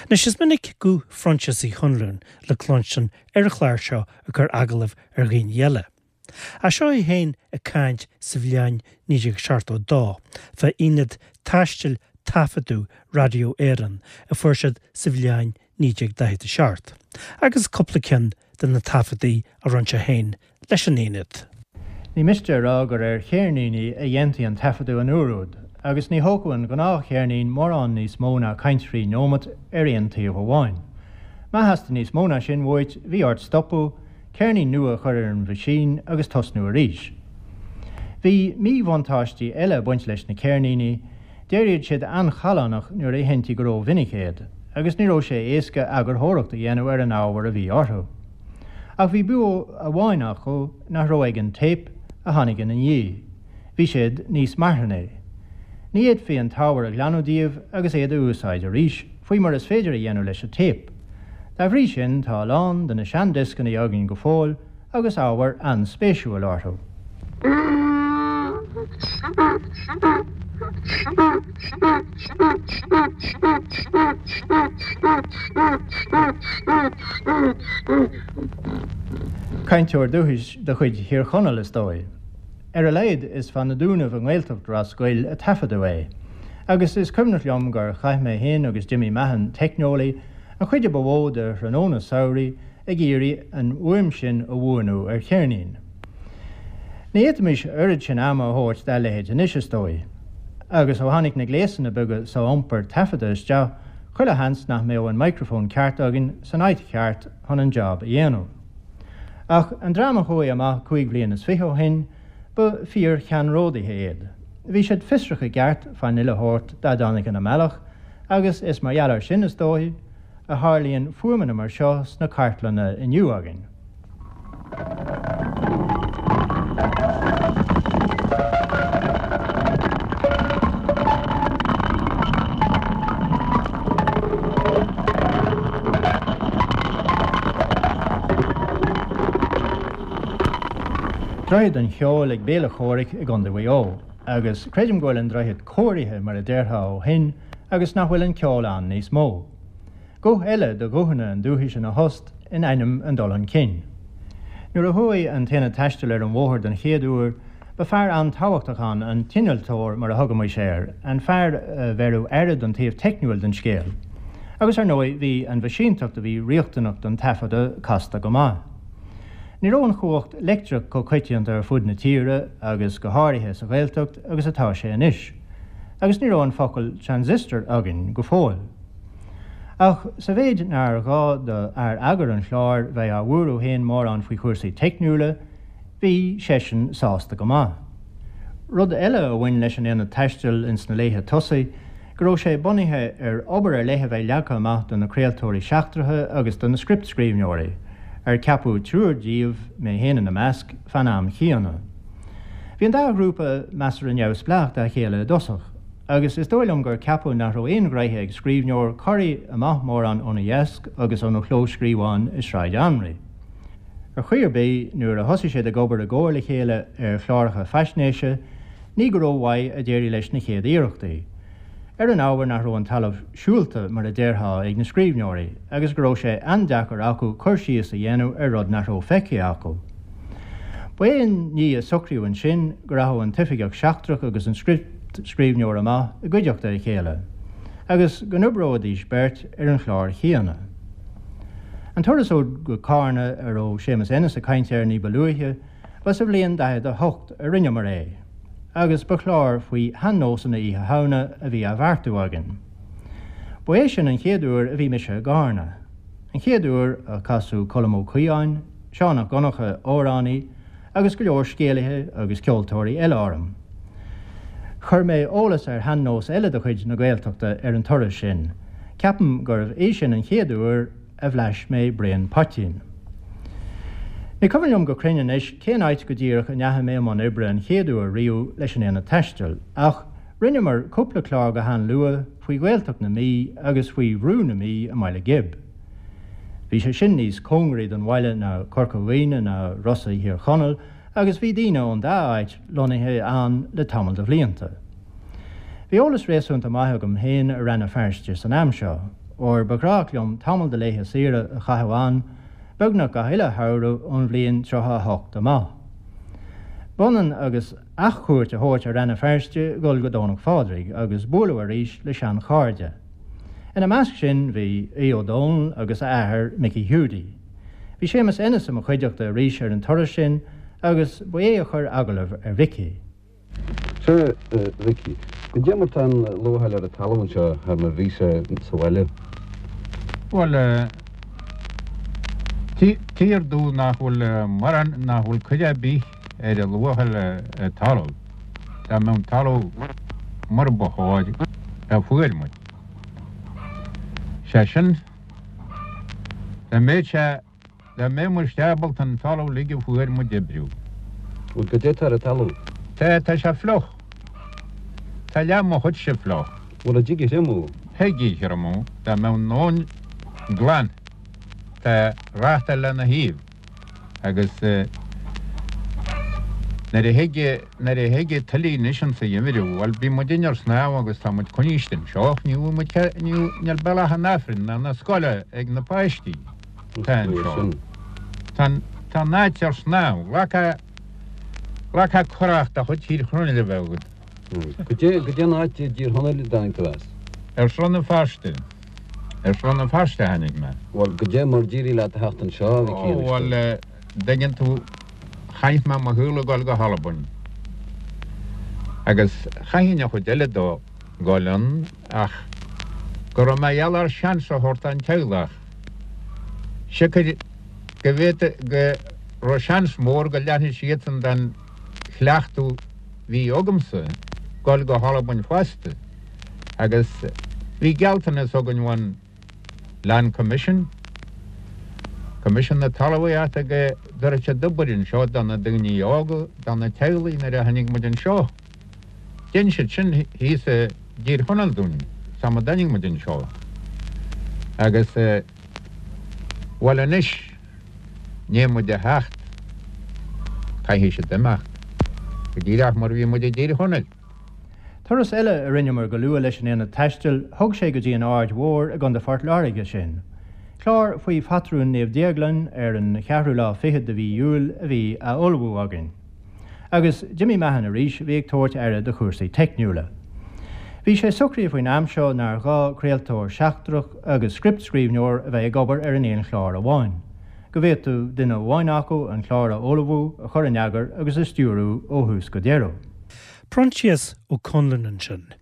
Anois is minic guth Phroinsias Uí Chonluain le cluinstin ar an chlár seo ag cur agallamh ar dhaoine eile. Ach seo é féin ag caint sa bhliain 1972 fá Aonad Taistil Taifeadadh Radio Éireann a fuair siad sa bhliain 1947, agus cúpla ceann de na taifeadtaí a rinne sé féin leis an Aonad. Ní miste a rá gur ar cheirníní a dhéantaí an taifeadadh an uair úd, agus ní thógfadh an ghnáthcheirnín mórán níos mó ná caint thrí neomat ar aon taobh amháin. Má theastaigh níos mó ná sin uait, bhí ort stopadh, ceirnín nua a chur ar an mheaisín agus tosnú arís. Bhí míbhuntáistí eile ag baint leis na ceirníní, d'éiríodh siad an-challánach nuair a sheinntí go rómhinic iad, agus ní raibh sé éasca eagarthóireacht a dhéanamh ar an ábhar a bhí orthu. Ach bhí bua amháin acu nach raibh ag an téip a tháinig ina ndiaidh, bhí siad níos marthanaí. Ní fhéadfaí an t-ábhar a ghlanadh díobh agus iad a úsáid arís, faoi mar is féidir a dhéanamh leis an téip. Dá bhrí sin, tá a lán de na seandioscanna againn go fóill agus ábhar an-spéisiúil orthu. Cainteoir dúchais de chuid Thír Chonaill, is dóigh. Ar a laghad, is fá na Dúnaibh i nGaeltacht Ros Goill a taifeadadh é. Agus is cuimhneach liom gur chaith mé féin agus Jimmy Mahon, teicneolaí, an chuid a ba mhó de thráthnóna samhraidh ag iarraidh an fhuaim sin a bhuanú ar cheirnín. Ní fhéadfaimis oiread sin ama a thabhairt dá leithéid anois, is dóigh. Agus ó tháinig na gléasanna beaga so-iompair taifeadta isteach, chuile sheans nach mbeadh an micreafón ceart againn san áit cheart chun an job a dhéanamh. Ach an dream a chuaigh amach chúig bhliain is fiche ó shin, ba fíor-cheannródaithe iad. Bhí siad fiosrach i gceart fán uile shórt dá dtáinig ina mbealach, agus is mar gheall air sin, is dóigh, a tharlaíonn fuaimeanna mar seo sna cartlanna inniu againn. Droichead an Cheoil ag Béal an Chomhraic i gContae Mhaigh Eo, agus creidim go bhfuil an droichead cóirithe mar a déarfá ó shin agus nach bhfuil an ceol ann níos mó. Guth eile de ghuthanna an dúchais ina thost in ainm an dul chun cinn. Nuair a chuaigh an tAonad Taistil ar an bhóthar den chéad uair, ba fear an-tábhachtach ann an t-innealtóir mar a thugaimis air, an fear a bheireadh aire don taobh teicniúil den scéal. Agus ar ndóigh bhí an mheaisínteacht a bhí riachtanach don taifeadadh casta go maith. Ní raibh an chumhacht leictreach chomh coitianta ar fud na tíre agus go háirithe sa Ghaeltacht agus atá sé anois. Agus ní raibh an focal transistor againn go fóill. Ach sa mhéid nár ghá do fhear eagair an chláir bheith á bhuaireamh féin mórán faoi chúrsaí teicniúla, bhí seisean sásta go maith. Rud eile a bhain leis an Aonad Taistil ins na laetha tosaigh, go raibh sé bunaithe ar obair ar leith a bheith leagtha amach do na craoltóirí seachtracha agus do na scriptscríbhneoirí, ar ceapadh triúr díobh, mé féin ina measc, fan am chéanna. Bhí an dá ghrúpa measartha neamhspleách dá chéile i dtosach. agus is dóigh liom gur ceapadh nach raibh aon ghnaithe ag scríbhneoir corraí amach mórán óna dheasc agus óna chlóscríobhán i Sráid Anraí. Ar chaoi ar bith, nuair a thosaigh siad ag obair i gcomhar le chéile ar chláracha faisnéise, ní go rómhaith a d'éirigh leis na chéad iarrachtaí. Ar an ábhar nach raibh an talamh siúlta, mar a déarfá, ag na scríbhneoirí, agus go raibh sé an-deacair acu cur síos a dhéanamh ar rud nach raibh feicthe acu. Ba é an ní a socraíodh ansin go rachadh an t-oifigeach seachtrach agus an scriptscríbhneoir amach i gcuideachta a chéile, agus go n-oibreoidís beirt ar an chlár chéanna. An turas úd go Cárna a raibh Séamus Ennis ag caint air ní ba luaithe, ba sa bhliain 48 a rinneamar é, agus ba chlár faoi shean-nósanna Oíche Shamhna a bhí á bheartú againn. Ba é sin an chéad uair a bhí mise i gCárna. An chéad uair a casadh Colm Ó Caodháin, Seán 'Ac Dhonncha, amhránaí, agus go leor scéalaithe agus ceoltóirí eile orm. Chuir mé eolas ar shean-nós eile de chuid na Gaeltachta ar an turas sin. Ceapaim gurbh é sin an chéad uair a bhlais mé braon poitín. Ní cuimhin liom go cruinn anois cén áit go díreach a ndeachaigh mé i mbun oibre an chéad uair riamh leis an Aonad Taistil, ach rinneamar cúpla clár go han-luath faoi Ghaeltacht na Mí agus faoi Bhrú na Mí i mBaile Ghib. Bhí sé sin níos cóngaraí don bhaile ná Corca Dhuibhne ná Rosa Thír Chonaill agus bhí daoine ón dá áit lonnaithe ann le tamall de bhlianta. Bhí eolas réasúnta maith agam féin ar Rann na Feirste san am seo. óir ba ghnách liom tamall de laethe saoire a chaitheamh ann, beagnach gach uile shamhradh ón bhliain 38 amach. B'ionann agus athchuairt a thabhairt ar Rann na Feirste dhul go Domhnach Phádraig agus bualadh arís le seanchairde. Ina measc sin bhí Aodh Ó Dónaill agus a athair Micí Hiúdaí. Bhí Séamus Ennis i mo chuideachta arís ar an turas sin agus ba é a chuir agallamh ar Mhicí. Sea, a Mhicí, goidé mar tá an luacháil ar an talamh anseo thar mar bhí sé sa bhaile? Bhuel, tír dubh nach bhfuil mórán, nach bhfuil cuid ar bith ar an luacháil ar talamh, dá mbeadh an talamh mar ba chóir, a fuair muid. Sé sin, dá mbeadh sé Dá mbeadh muid ábalta an talamh uilig a fuair muid a oibriú. Bhuel, goidé atá ar an talamh? Tá, tá sé fliuch. Tá leath mo chuidse fliuch. Bhuel, an dtig a thriomú? Thig a thriomú, dá mbeadh an abhainn glan. Tá reachtáil lena thaobh agus nuair a thig, nuair a thig an tuile anois insa gheimhreadh, bhuel, bíonn muidinne ar snámh agus tá muid coinniste anseo, ní bhfuil muid, níl bealach an Aifrinn ná na scoile ag na páistí. Tá anseo. Tá tá an áit ar snámh. Ghlacfá ghlacfá curach de chuid Thír Chonaill a bheith agat. Goidé goidé an áit i dTír Chonaill a dtáinig tú as? Ar Srath na Feirste. Ar Srath na Feirste a tháinig mé. Bhuel, goidé mar d'éirigh leat a theacht anseo, a Mhicí, Ó, bhuel, dtuigeann tú, chaith mé mo shaol ag dul go hAlbain. Agus chaithfinn an chuid eile dó dhul ann ach go raibh mé gheall ar seans a thabhairt don teaghlach. Siocair go bhféadfadh go raibh seans mór go leanfadh siadsan den chleachtadh bhí agamsa dul go hAlbain fosta agus bhí gealltanas againn ón Land Commission, Coimisiún na Talmhaíochta go dtabharfadh siad obair anseo do na daoine óga, do na teaghlaigh nuair a tháinig muid anseo. Dhein siad sin thíos i dTír Chonaill dúinn, sam a dtáinig muid anseo. Agus, bhuel anois, ndiaidh muid a theacht, caithfidh siad imeacht, go díreach mar a bhí muid i dTír Chonaill. Turas eile a rinneamar go luath leis an Aonad Taistil, thug sé go dtí an Aird Mhór i gContae Phort Láirge sinn. Clár faoi phatrún Naomh Déaglán ar an cheathrú lá fichead de mhí Iúil a bhí á ullmhú againn. Agus Jimmy Mahon arís a bhí ag tabhairt aire do chúrsaí teicniúla. Bhí sé socraithe faoin am seo nár ghá craoltóir seachtrach agus scriptscríbhneoir a bheith ag obair ar an aon chlár amháin, go bhféadfadh duine amháin acu an clár a ullmhú, a chur in eagar agus a stiúrú ó thús go deireadh. Proinsias Ó Conluain ansin.